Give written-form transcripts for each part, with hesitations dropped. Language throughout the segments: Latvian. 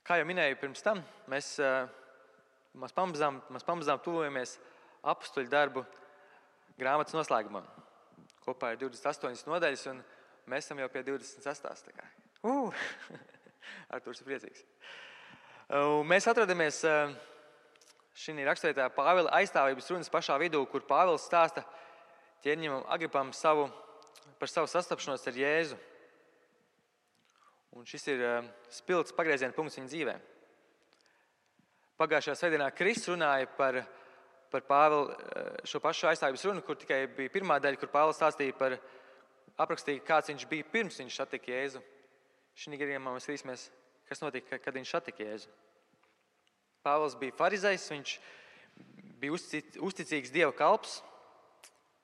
Kā jau minēju pirms tam, mēs pamazām tuvojamies apstuļu darbu grāmatas noslēgumam. Kopā ir 28 nodaļas, un mēs esam jau pie 26. Artūrs ir priecīgs. Mēs atrodamies šī raksturvietā Pāvila aizstāvības runas pašā vidū, kur Pāvils stāsta ķēniņam Agripam par savu sastapšanos ar Jēzu. Un šis ir spilgts pagrieziena punkts viņa dzīvē. Pagājušajā svētdienā Kristus runāja par Pāvila šo pašu aizstāvības runu, kur tikai bija pirmā daļa, kur Pāvils aprakstīja, kāds viņš bija pirms viņš satika Jēzu. Šī gadījumā mēs skatīsimies, kas notika, kad viņš satika Jēzu. Pāvils bija farizejs, viņš bija uzticīgs Dieva kalps.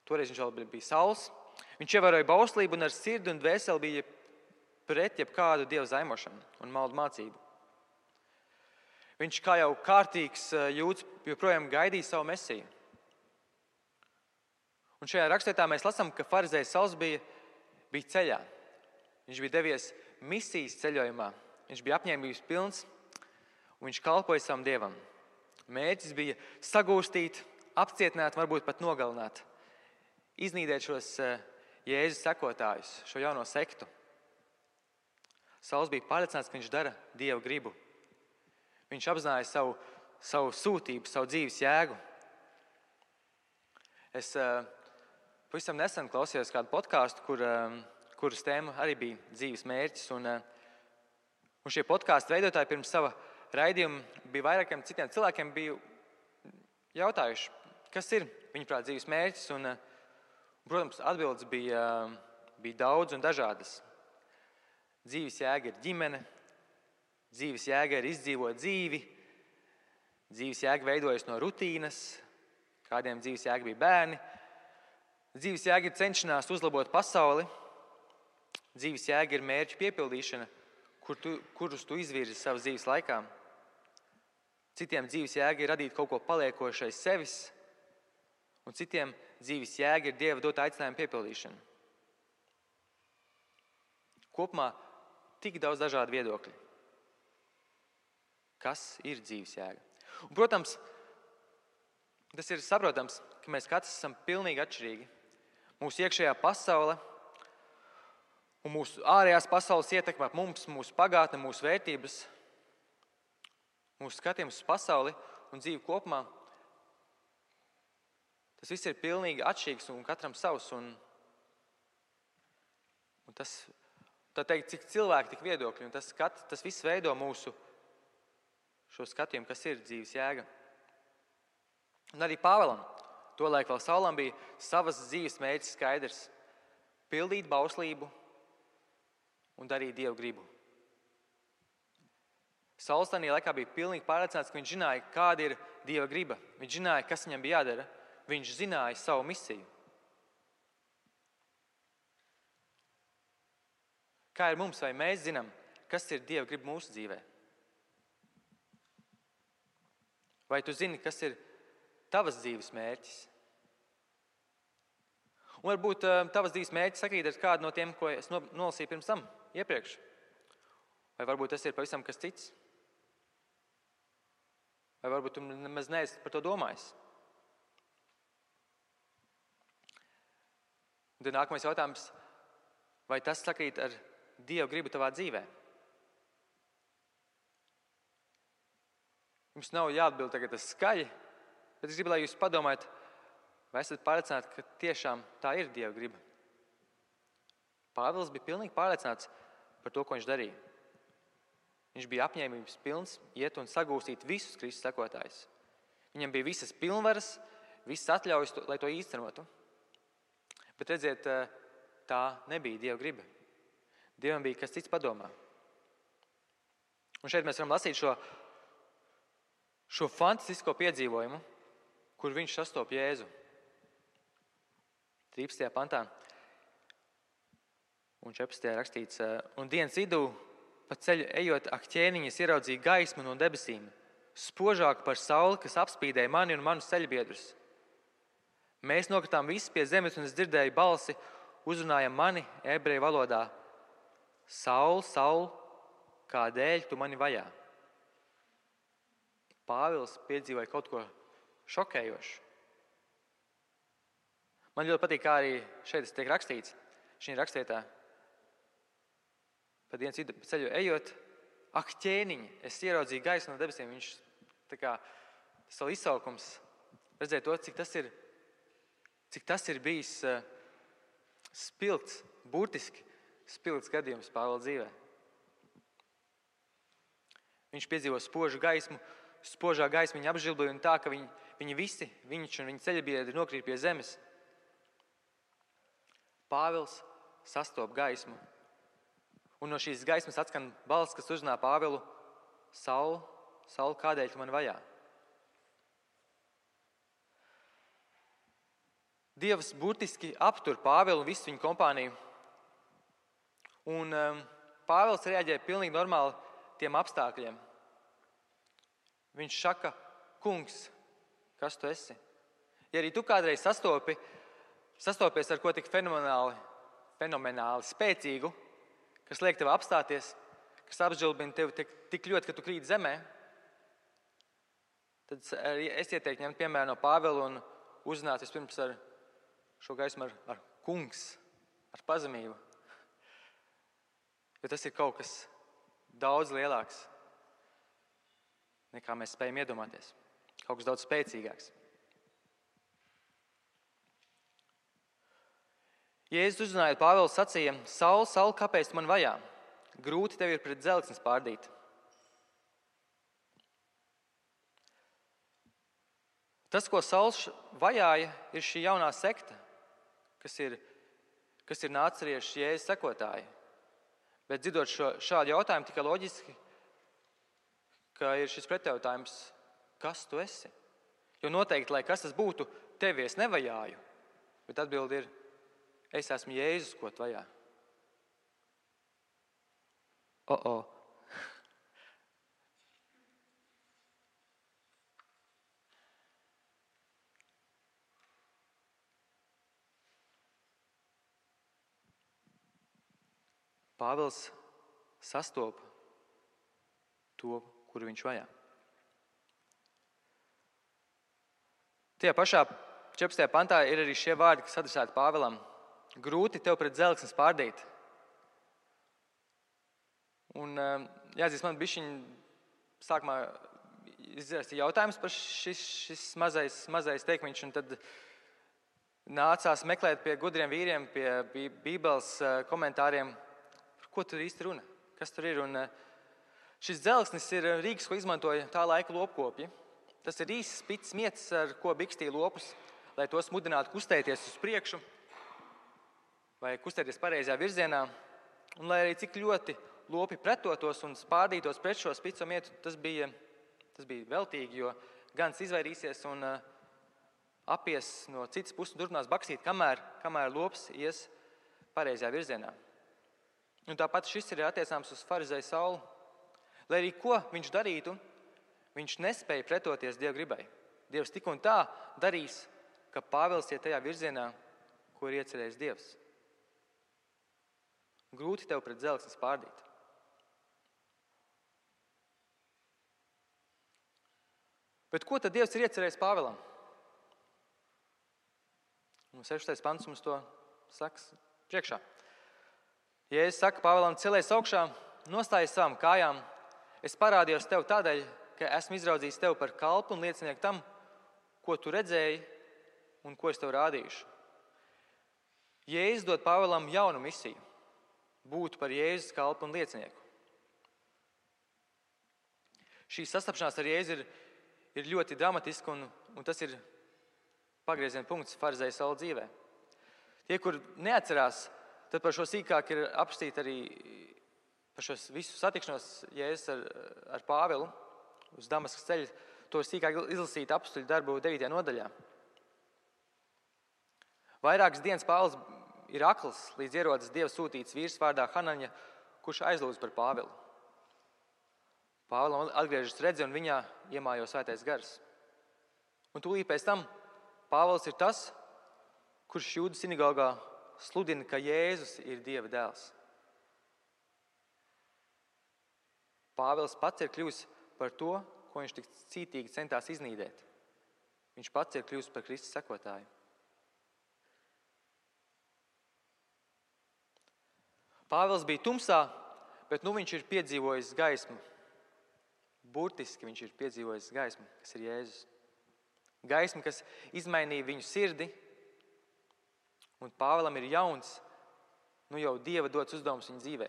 Toreiz viņš vēl bija Sauls. Viņš ievēroja bauslību un ar sirdi un dvēseli bija pret jebkādu Dieva zaimošanu un maldu mācību. Viņš kā jau kārtīgs jūds joprojām gaidīja savu mesiju. Un šajā rakstvietā mēs lasām, ka farizejs Sauls bija ceļā. Viņš bija devies misijas ceļojumā. Viņš bija apņēmības pilns un viņš kalpoja savam Dievam. Mērķis bija sagūstīt, apcietināt, varbūt pat nogalināt, iznīdēt šos Jēzus sekotājus, šo jauno sektu. Sauls bija pārliecināts, ka viņš dara Dieva gribu. Viņš apzināja savu sūtību, savu dzīves jēgu. Es pavisam nesen klausījos kādu podkāstu, kuras tēma arī bija dzīves mērķis. Un šie podkāstu veidotāji pirms sava raidījuma bija vairākiem citiem cilvēkiem bija jautājuši, kas ir viņuprāt dzīves mērķis. Un, protams, atbildes bija daudz un dažādas. Dzīves jēga ir ģimene, dzīves jēga ir izdzīvot dzīvi, dzīves jēga veidojas no rutīnas, kādiem dzīves jēga bija bērni, dzīves jēga ir cenšanās uzlabot pasauli, dzīves jēga ir mērķu piepildīšana, kurus tu izvirzi savas dzīves laikā. Citiem dzīves jēga ir radīt kaut ko paliekošu aiz sevis, un citiem dzīves jēga ir Dieva dota aicinājuma piepildīšana. Kopumā tik daudz dažādu viedokļu. Kas ir dzīves jēga? Un, protams, tas ir saprotams, ka mēs katrs esam pilnīgi atšķirīgi. Mūsu iekšējā pasaule un mūsu ārējās pasaules ietekmē mums, mūsu pagātne, mūsu vērtības, mūsu skatījums uz pasauli un dzīvi kopumā. Tas viss ir pilnīgi atšķirīgs un katram savs. Un tas, tā teikt, cik cilvēki, tik viedokļi. Un tas viss veido mūsu šo skatījumu, kas ir dzīves jēga. Un arī Pāvilam, tolaik vēl Saulam, bija savas dzīves mērķis skaidrs – pildīt bauslību un darīt Dievu gribu. Sauls tajā laikā bija pilnīgi pārliecināts, ka viņš zināja, kāda ir Dieva griba. Viņš zināja, kas viņam bija jādara. Viņš zināja savu misiju. Kā ir mums, vai mēs zinām, kas ir Dieva griba mūsu dzīvē? Vai tu zini, kas ir tavas dzīves mērķis? Un varbūt tavas dzīves mērķis sakrīt ar kādu no tiem, ko es nolasīju pirms tam, iepriekš. Vai varbūt tas ir pavisam kas cits? Vai varbūt tu nemaz neesi par to domājis? Un tad nākamais jautājums, vai tas sakrīt ar Dieva gribu tavā dzīvē? Jums nav jāatbild tagad tas skaļi, bet es gribu, lai jūs padomājat, vai esat pārliecināti, ka tiešām tā ir Dieva griba. Pāvils bija pilnīgi pārliecināts par to, ko viņš darīja. Viņš bija apņēmības pilns iet un sagūstīt visus Kristus sekotājus. Viņam bija visas pilnvaras, visas atļaujas, lai to īstenotu. Bet redziet, tā nebija Dieva griba. Dievam bija kas cits padomā. Un šeit mēs varam lasīt šo fantastisko piedzīvojumu, kur viņš sastop Jēzu. 13. pantā un 14. rakstīts, un dienas vidū pa ceļu ejot ak ķēniņas ieraudzīja gaismu no debesīm, spožāku par sauli, kas apspīdēja mani un manus ceļbiedrus. Mēs nokritām visi pie zemes, un es dzirdēju balsi, uzrunājam mani ebreju valodā. Saul, Saul, kādēļ tu mani vajā? Pāvils piedzīvoja kaut ko šokējošu. Man ļoti patīk, kā arī šeit tiek rakstīts, šī rakstvietā. Pa dienas vidu ceļu ejot, ak, ķēniņi, es ieraudzīju gaismu no debesīm. Viņš tā kā savu izsaukums redzēja to, cik tas ir bijis spilgts, burtiski spilgts gadījums Pāvila dzīvē. Viņš piedzīvo spožu gaismu, spožā gaisma viņa apžilboja un tā, ka viņi visi, viņš un viņa ceļabiedri nokrīt pie zemes. Pāvils sastop gaismu. Un no šīs gaismas atskan balss, kas uzrunā Pāvilu: Saul, Saul, kādēļ tu mani vajā? Dievs burtiski aptur Pāvilu un visu viņu kompāniju. Un Pāvils reaģēja pilnīgi normāli tiem apstākļiem. Viņš saka: Kungs, kas tu esi? Ja arī tu kādreiz sastopies ar ko tik fenomenāli spēcīgu, kas liek tev apstāties, kas apžilbina tevi tik ļoti, ka tu krīt zemē, tad es ieteiktu ņemt piemēru no Pāvila un uzrunāt vispirms ar šo gaismu ar kungs, ar pazemību. Jo tas ir kaut kas daudz lielāks, nekā mēs spējam iedomāties. Kaut kas daudz spēcīgāks. Jēzus uzrunājot Pāvilu sacīja: Saul, Saul, kāpēc tu man vajā? Grūti tev ir pret dzelksni spārdīt. Tas, ko Sauls vajāja, ir šī jaunā sekta, kas ir nāceriešu Jēzus sekotāji. Bet dzirdot šādu jautājumu, tikai loģiski, ka ir šis pretjautājums: kas tu esi? Jo noteikti, lai kas tas būtu, tevi es nevajāju. Bet atbilde ir: es esmu Jēzus, ko tu vajā. Pāvils sastopa to, kuru viņš vajā. Tajā pašā 14. pantā ir arī šie vārdi, kas adresēti Pāvilam: grūti tev pret dzelksni spārdīt. Un jāatzīst, man bišķiņ sākumā izrasti jautājums par šis mazais teikmiņš, un tad nācās meklēt pie gudriem vīriem, pie Bībeles komentāriem, par ko tur īsti runa, kas tur ir. Un šis dzelksnis ir rīks, ko izmantoja tā laika lopkopji. Tas ir īsts spits mietis, ar ko bikstīja lopus, lai tos mudinātu kustēties uz priekšu vai kustēties pareizajā virzienā. Un lai arī cik ļoti lopi pretotos un spārdītos pret šo spico mietu, tas bija veltīgi, jo gans izvairīsies un apies no citas puses un turpinās baksīt, kamēr lops ies pareizajā virzienā. Un tāpat šis ir attiecāms uz farizeju Saulu. Lai arī ko viņš darītu, viņš nespēja pretoties Dieva gribai. Dievs tik un tā darīs, ka Pāvils iet tajā virzienā, ko ir iecerējis Dievs. Grūti tev pret dzelksni spārdīt. Bet ko tad Dievs ir iecerējis Pāvilam? Un 16. pants mums to saka priekšā. Jēzus saka Pāvilam: celies augšā, nostājies savām kājām. Es parādījos tev tādēļ, ka esmu izraudzījis tevi par kalpu un liecinieku tam, ko tu redzēji un ko es tev rādīšu. Jēzus dod Pāvilam jaunu misiju – būt par Jēzus kalpu un liecinieku. Šī sastapšanās ar Jēzu ir ļoti dramatiska, un tas ir pagrieziena punkts farizeja Saula dzīvē. Tie, kur neatcerās, tad par šo sīkāk ir apstīti arī par šo visu satikšanos Jēzus ar Pāvilu uz Damaskas ceļa. To ir sīkāk izlasīt Apostļu darbu 9. nodaļā. Vairākas dienas Pāvils ir akls, līdz ierodas Dieva sūtīts vīrs vārdā Hanaņa, kurš aizlūdz par Pāvilu. Pāvilam atgriežas redzi un viņā iemājo svētais gars. Un tūlīt pēc tam Pāvils ir tas, kurš Jūdu sinagogā sludina, ka Jēzus ir Dieva dēls. Pāvils pats ir kļuvis par to, ko viņš tik cītīgi centās iznīdēt. Viņš pats ir kļuvis par Kristus sekotāju. Pāvils bija tumsā, bet viņš ir piedzīvojis gaismu. Burtiski viņš ir piedzīvojis gaismu, kas ir Jēzus. Gaismu, kas izmainīja viņu sirdi, un Pāvilam ir jauns, jau Dieva dots uzdevums viņa dzīvē.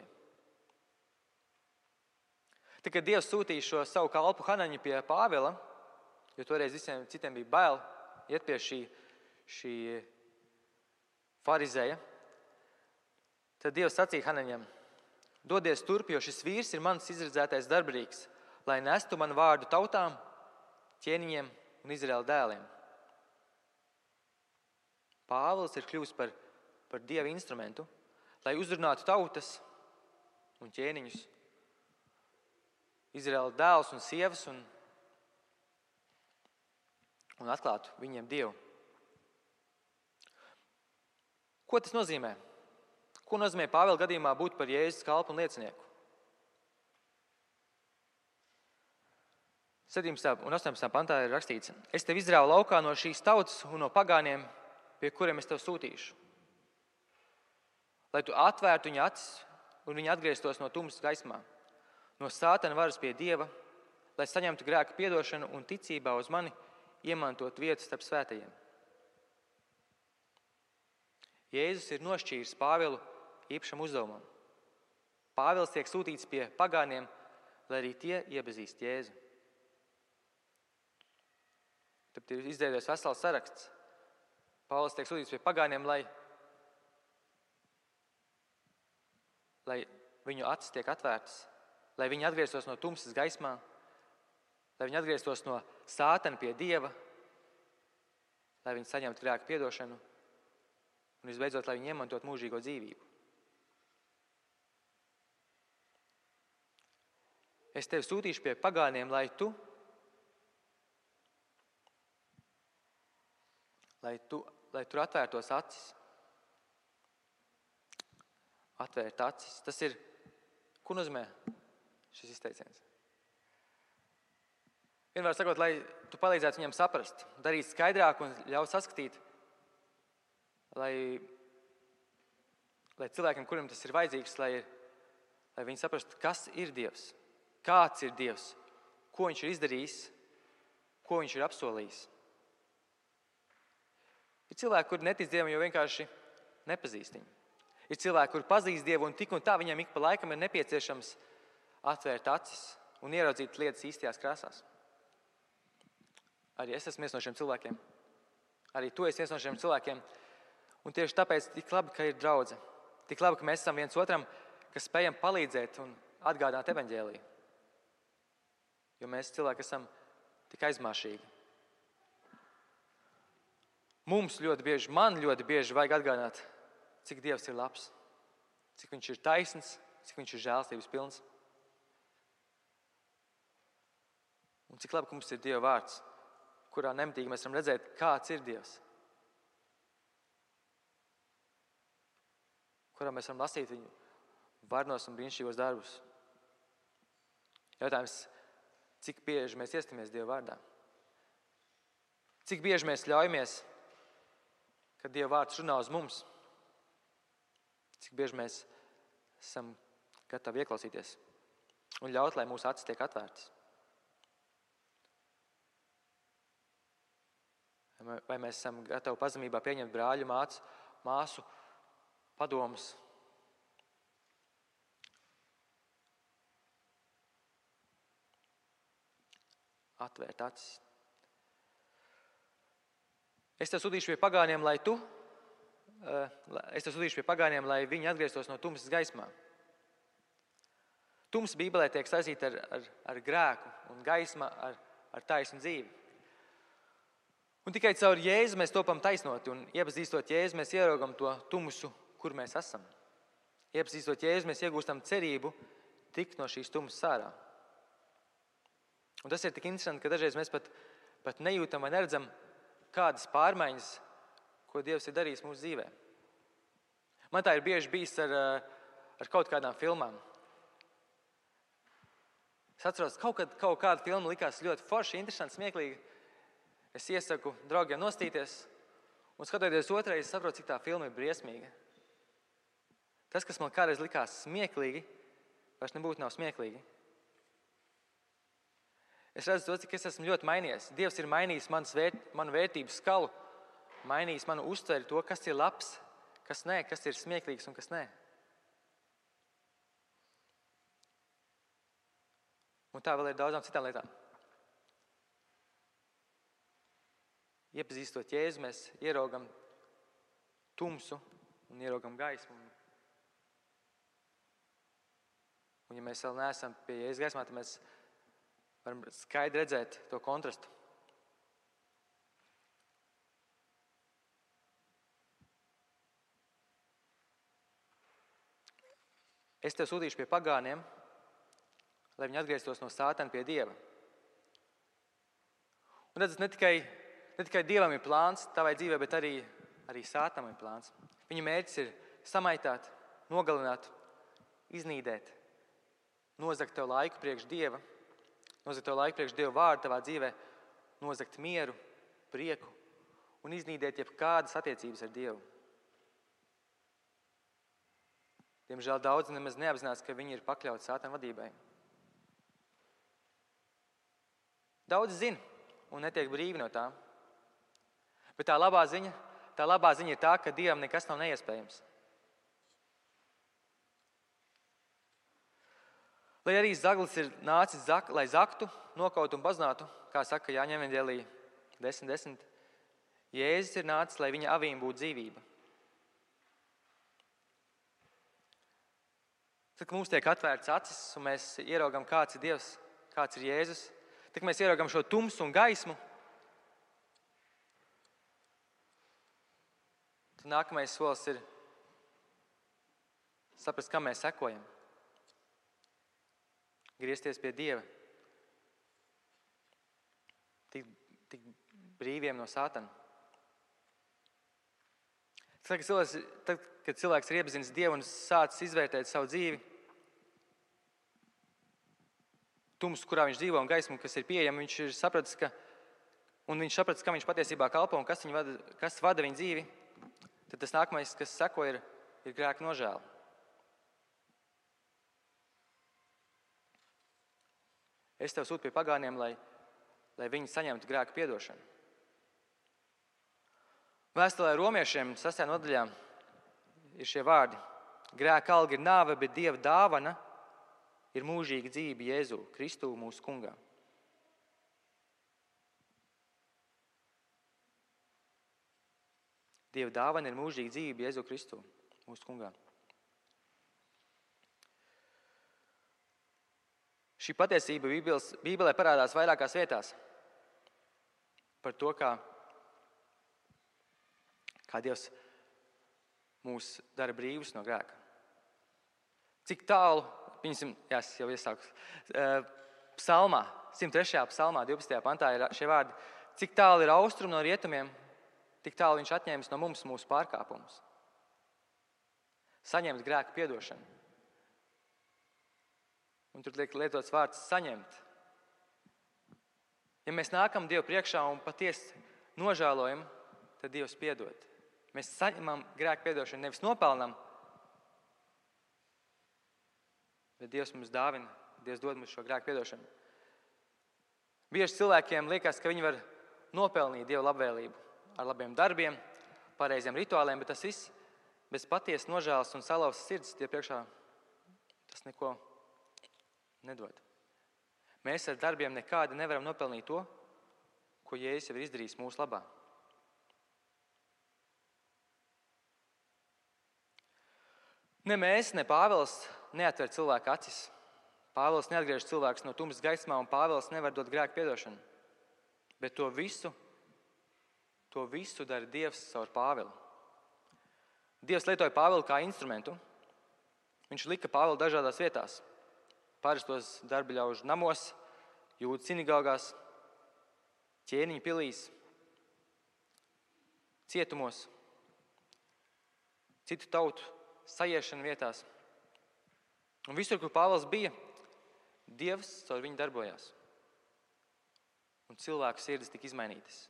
Tad, kad Dievs sūtīja šo savu kalpu Hanaņu pie Pāvila, jo toreiz visiem citiem bija bail iet pie šī farizēja, tad Dievs sacīja Hanaņam: dodies turp, jo šis vīrs ir mans izredzētais darbrīgs, lai nestu manu vārdu tautām, ķēniņiem un Izraēla dēliem. Pāvils ir kļuvis par Dieva instrumentu, lai uzrunātu tautas un ķēniņus, Izraēla dēlus un sievas un atklātu viņiem Dievu. Ko tas nozīmē? Ko nozīmē Pāvila gadījumā būt par Jēzus kalpu un liecinieku? 17. un 18. pantā ir rakstīts: es tevi izrāvu laukā no šīs tautas un no pagāniem, pie kuriem es tevi sūtīšu, lai tu atvērtu viņa acis un viņi atgrieztos no tumsas gaismā, no sātana varas pie Dieva, lai saņemtu grēka piedošanu un ticībā uz mani iemantot vietu starp svētajiem. Jēzus ir nošķīris Pāvilu īpašam uzdevumam. Pāvils tiek sūtīts pie pagāniem, lai arī tie iepazīst Jēzu. Tad ir izveidojies vesels saraksts. Pāvils tiek sūtīts pie pagāniem, lai viņu acis tiek atvērtas, lai viņi atgrieztos no tumsas gaismā, lai viņi atgrieztos no sātana pie Dieva, lai viņi saņemtu grēka piedošanu un visbeidzot, lai viņi iemantot mūžīgo dzīvību. Es tevi sūtīšu pie pagāniem, lai tur atvērtos acis. Atvērt acis. Tas ir, ko nozīmē šis izteiciens? Vienmēr sakot, lai tu palīdzētu viņam saprast, darīt skaidrāk un ļaut saskatīt, lai cilvēkiem, kuriem tas ir vajadzīgs, lai viņi saprastu, kas ir Dievs, kāds ir Dievs, ko viņš ir izdarījis, ko viņš ir apsolījis. Ir cilvēki, kuri netic Dievam, jo vienkārši nepazīst viņu. Ir cilvēki, kuri pazīst Dievu, un tik un tā viņam ik pa laikam ir nepieciešams atvērt acis un ieraudzīt lietas īstajās krāsās. Arī es esmu viens no šiem cilvēkiem. Arī tu esi viens no šiem cilvēkiem. Un tieši tāpēc tik labi, ka ir draudze. Tik labi, ka mēs esam viens otram, kas spējam palīdzēt un atgādāt evaņģēliju. Jo mēs cilvēki esam tik aizmāšīgi. Man ļoti bieži vajag atgādināt, cik Dievs ir labs, cik viņš ir taisns, cik viņš ir žēlstības pilns. Un cik labi, ka mums ir Dieva vārds, kurā nemitīgi mēs varam redzēt, kāds ir Dievs. Kurā mēs varam lasīt viņu varnos un brīnišķīgos darbus. Jautājums, cik bieži mēs iestamies Dieva vārdā? Cik bieži mēs ļaujamies, kad Dieva vārds runā uz mums? Cik bieži mēs esam gatavi ieklausīties un ļaut, lai mūsu acis tiek atvērtas? Vai mēs esam gatavi pazemībā pieņemt brāļu, māsu padomus? Atvērt acis. Es tev sūtīšu pie pagāniem, lai viņi atgrieztos no tumsas gaismā. Tumsa Bībelē tiek saistīta ar grēku un gaisma ar taisnu dzīvi. Un tikai caur Jēzu mēs topam taisnoti, un iepazīstot Jēzu, mēs ieraugam to tumsu, kur mēs esam. Iepazīstot Jēzu, mēs iegūstam cerību tikt no šīs tumsas ārā. Un tas ir tik interesanti, ka dažreiz mēs pat nejūtam vai neredzam kādas pārmaiņas, ko Dievs ir darījis mūsu dzīvē. Man tā ir bieži bijis ar kaut kādām filmām. Es atceros, kaut kāda filma likās ļoti forša, interesanta, smieklīga. Es iesaku draugiem nostīties, un skatoties otrreiz, saprotu, cik tā filma ir briesmīga. Tas, kas man kādreiz likās smieklīgi, vairs nebūtu nav smieklīgi. Es redzu to, cik es esmu ļoti mainījies. Dievs ir mainījis manu vērtību skalu, mainījis manu uztveri to, kas ir labs, kas nē, kas ir smieklīgs un kas nē. Un tā vēl ir daudzām citām lietām. Iepazīstot Jēzu, mēs ieraugam tumsu un ieraugam gaismu. Un ja mēs vēl neesam pie Jēzus gaismā, tad mēs varam skaidri redzēt to kontrastu. Es tev sūtīšu pie pagāniem, lai viņi atgrieztos no Sātana pie Dieva. Un redzat, ne tikai Dievam ir plāns tavai dzīvē, bet arī Sātanam ir plāns. Viņa mērķis ir samaitāt, nogalināt, iznīdēt, nozagt tev laiku priekš Dieva, nozagt tev laiku priekš Dieva vārdu tavā dzīvē, nozagt mieru, prieku un iznīdēt jebkādas attiecības ar Dievu. Diemžēl daudzi nemaz neapzinās, ka viņi ir pakļauti Sātana vadībai. Daudzi zina un netiek brīvi no tā. Bet tā labā ziņa ir tā, ka Dievam nekas nav neiespējams. Lai arī zaglis ir nācis, lai zaktu, nokautu un baznātu, kā saka Jāņa evanģēlī 10:10, Jēzus ir nācis, lai viņa avīm būtu dzīvība. Tad, kad mums tiek atvērts acis un mēs ieraugam, kāds ir Dievs, kāds ir Jēzus, tad mēs ieraugam šo tumsu un gaismu, tad nākamais solis ir saprast, kam mēs sekojam. Griezties pie Dieva. Tik brīviem no Sātana. Tad, kad cilvēks ir iepazinis Dievu un sācis izvērtēt savu dzīvi, tumsu, kurā viņš dzīvo un gaismu, kas ir pieejama, viņš ir sapratis, kam viņš patiesībā kalpo un kas vada viņa dzīvi, tad tas nākamais, kas seko, ir grēka nožēla. Es tev sūtu pie pagāniem, lai viņi saņemtu grēka piedošanu. Vēstulē Romiešiem 6. nodaļā ir šie vārdi. Grēka alga ir nāve, bet Dieva dāvana ir mūžīga dzīve Jēzu Kristu mūsu kungā. Dieva dāvana ir mūžīga dzīve Jēzu Kristu mūsu kungā. Šī patiesība Bībelē parādās vairākās vietās par to, kā Dievs mūs dara brīvus no grēka. Cik tālu, es jau iesāku, psalmā, 103. psalmā, 12. pantā ir šie vārdi, cik tālu ir austrumi no rietumiem, tik tālu viņš atņēmis no mums mūsu pārkāpumus. Saņemt grēka piedošanu. Un tur tiek lietots vārds saņemt. Ja mēs nākam Dievu priekšā un patiesi nožēlojam, tad Dievs piedod. Mēs saņemam grēka piedošanu, nevis nopelnam, bet Dievs mums dāvina, Dievs dod mums šo grēka piedošanu. Bieži cilvēkiem liekas, ka viņi var nopelnīt Dieva labvēlību ar labiem darbiem, pareiziem rituāliem, bet tas viss bez patiesas nožēlas un salauztas sirds Dieva priekšā tas neko nedod. Mēs ar darbiem nekādi nevaram nopelnīt to, ko Jēzus jau ir izdarījis mūsu labā. Ne mēs, ne Pāvils neatver cilvēku acis. Pāvils neatgriež cilvēkus no tumsas gaismā, un Pāvils nevar dot grēku piedošanu. Bet to visu dara Dievs caur Pāvilu. Dievs lietoja Pāvilu kā instrumentu. Viņš lika Pāvilu dažādās vietās. Parastos darbiļaužu namos, Jūdu sinagogās, ķēniņu pilīs, cietumos, citu tautu sajiešana vietās. Un visur, kur Pāvils bija, Dievs caur viņu darbojās. Un cilvēku sirdis tika izmainītas.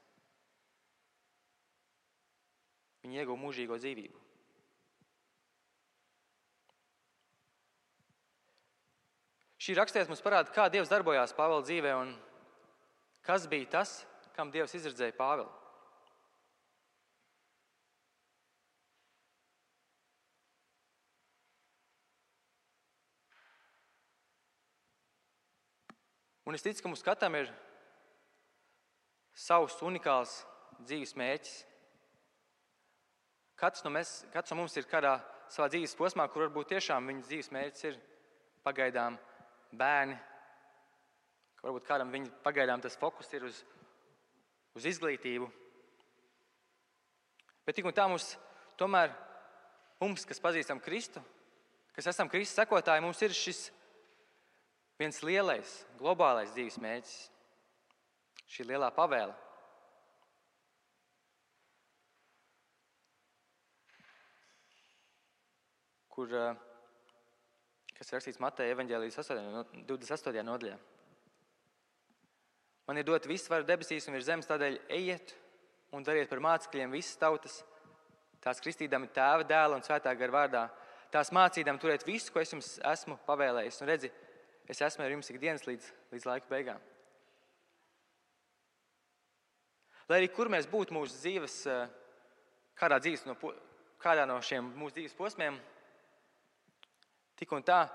Viņi ieguva mūžīgo dzīvību. Šī rakstvieta mums parāda, kā Dievs darbojās Pāvila dzīvē un kas bija tas, kam Dievs izredzēja Pāvilu. Un es ticu, ka mums katram ir savs unikāls dzīves mērķis. Katrs no mums ir kādā savā dzīves posmā, kur varbūt tiešām viņa dzīves mērķis ir pagaidām bērni. Varbūt kādam viņa pagaidām tas fokus ir uz izglītību. Bet tik un tā mums, kas pazīstam Kristu, kas esam Kristus sekotāji, mums ir šis viens lielais, globālais dzīves mērķis. Šī lielā pavēle. Kas rakstīts Mateja evaņģēlijas 28. nodaļā. Man ir dot visu varu debesīs un virs zemes, tādēļ ejiet un dariet par mācekļiem visas tautas, tās kristīdami Tēva, Dēla un Svētā gara vārdā, tās mācīdami turēt visu, ko es jums esmu pavēlējis. Un redzi, es esmu ar jums ikdienas līdz laika beigām. Lai arī kur mēs būtu mūsu dzīves, kādā no šiem mūsu dzīves posmiem, tik un tā,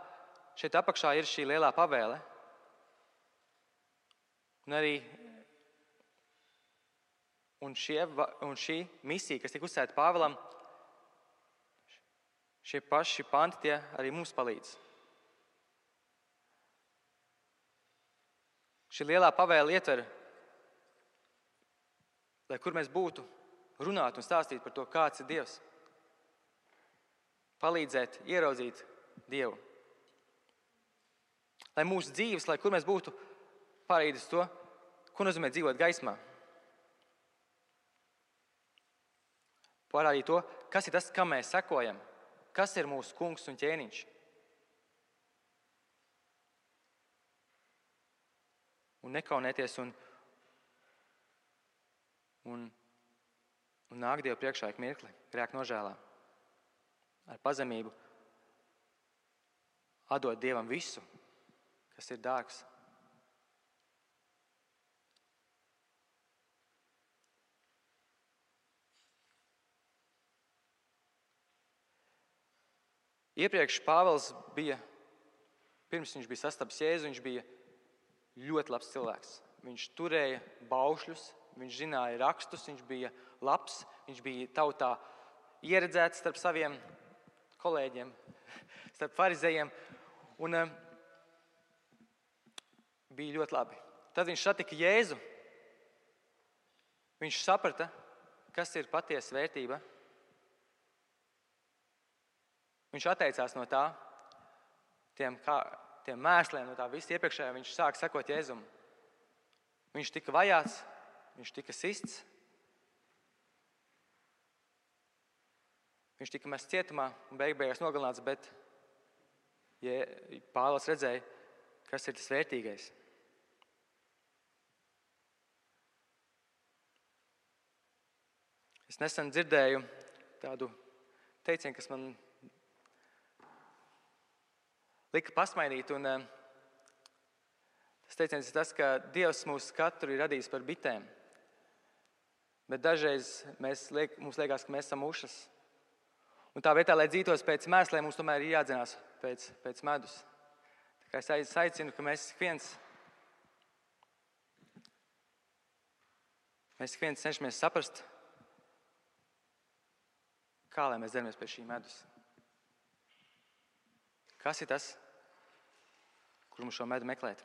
šeit apakšā ir šī lielā pavēle. Un šī misija, kas tika uzsēta Pāvilam, šie paši panti tie arī mums palīdz. Šī lielā pavēle ietver, lai kur mēs būtu, runāt un stāstīt par to, kāds ir Dievs. Palīdzēt, ieraudzīt Dievu. Lai mūsu dzīves, lai kur mēs būtu, pārīdus to, ko nozīmē dzīvot gaismā. Parādīt to, kas ir tas, kam mēs sekojam, kas ir mūsu kungs un ķēniņš. Un nekaunēties un nāk Dievu priekšā ik mirkli, grēka nožēlā. Ar pazemību atdot Dievam visu, kas ir dārgs. Iepriekš Pāvils pirms viņš bija sastapis Jēzu, viņš bija ļoti labs cilvēks. Viņš turēja baušļus, viņš zināja rakstus, viņš bija labs, viņš bija tautā ieredzēts starp saviem kolēģiem, starp farizejiem, un bija ļoti labi. Tad viņš satika Jēzu. Viņš saprata, kas ir patiesa vērtība. Viņš atteicās no tā, tiem mēsliem, no tā visa iepriekšējā. Viņš sāka sekot Jēzum. Viņš tika vajāts, viņš tika sists. Viņš tika mests cietumā un beigās nogalināts, bet Pāvils redzēja, kas ir tas vērtīgais. Es nesen dzirdēju tādu teicienu, kas man lika pasmaidīt, un tas teiciens ir tas, ka Dievs mūs katru ir radījis par bitēm, bet dažreiz mums liekas, ka mēs esam mušas. Un tā vietā, lai dzītos pēc mēsliem, mums tomēr ir jādzinās pēc medus. Tā kā es aicinu, ka mēs viens cenšamies saprast, kā lai mēs dzeramies pēc šī medus. Kas ir tas, kur mums šo medu meklēt?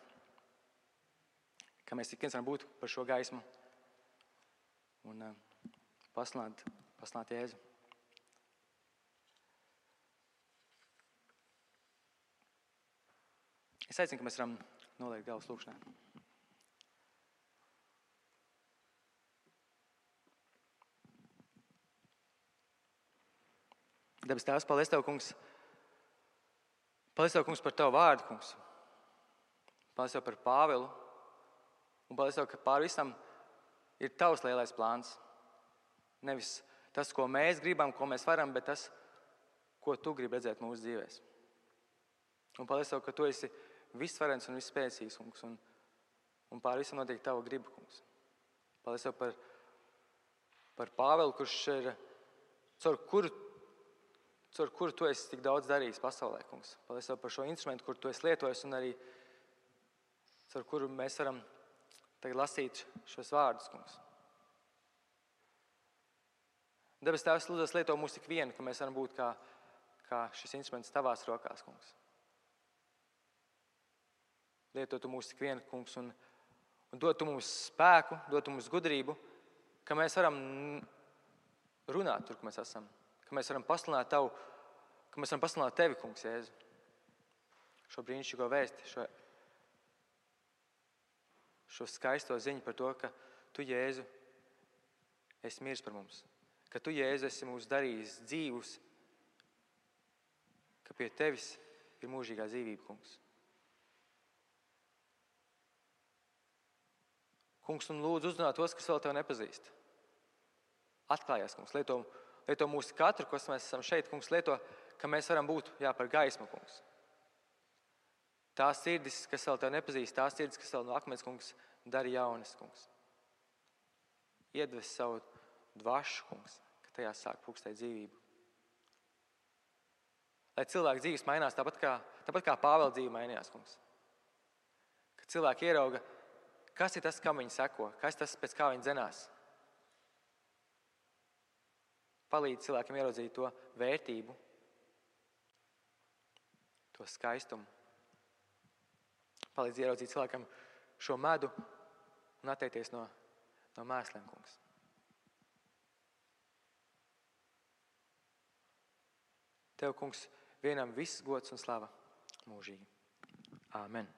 Kā mēs ik viens varam būt par šo gaismu un paslāt Jēzu. Es aicinu, ka mēs varam noliekt galvas lūkšanā. Debes Tēvs, paldies Tev, Kungs. Paldies Tev, Kungs, par Tavu vārdu, Kungs. Paldies Tev par Pāvilu. Un paldies Tev, ka pār visam ir Tavs lielais plāns. Nevis tas, ko mēs gribam, ko mēs varam, bet tas, ko Tu gribi redzēt mūsu dzīvēs. Un paldies Tev, ka Tu esi visvarens un visspēcīgs, kungs. Un pār visam notiek Tava griba, kungs. Paldies Tev par Pāvilu, kurš ir, caur kuru Tu esi tik daudz darījis pasaulē, kungs. Paldies Tev par šo instrumentu, kur Tu esi lietojis, un arī caur kuru mēs varam tagad lasīt šos vārdus, kungs. Debes Tēvs, lūdzu, lieto mūs tik vienu, ka mēs varam būt kā šis instruments Tavās rokās, kungs. Lieto Tu mūs tik vienu, kungs, un dod Tu mums spēku, dod Tu mums gudrību, ka mēs varam runāt tur, kur mēs esam, ka mēs varam pasludināt Tavu, ka mēs varam pasludināt Tevi, kungs, Jēzu. Šo brīnišķīgo vēsti, šo skaisto ziņu par to, ka Tu, Jēzu, esi miris par mums, ka Tu, Jēzu, esi mūs darījis dzīvus, ka pie Tevis ir mūžīgā dzīvība, kungs. Kungs, un lūdzu uzrunāt tos, kas vēl Tevi nepazīst. Atklājies, kungs, lieto mūsu katru, kas mēs esam šeit, kungs, lieto, ka mēs varam būt, par gaismu, kungs. Tās sirdis, kas vēl Tevi nepazīst, tās sirdis, kas vēl no akmens, kungs, dari jaunas, kungs. Iedves savu dvašu, kungs, ka tajā sāk pūkstēt dzīvību. Lai cilvēku dzīves mainās tāpat kā Pāvela dzīve mainījās, kungs. Ka cilvēki ierauga, kas ir tas, kam viņi seko, kas tas, pēc kā viņi dzenās. Palīdz cilvēkiem ieraudzīt to vērtību, to skaistumu. Palīdz ieraudzīt cilvēkam šo medu un atteikties no mēsliem, kungs. Tev, kungs, vienam viss gods un slava mūžīgi. Āmen.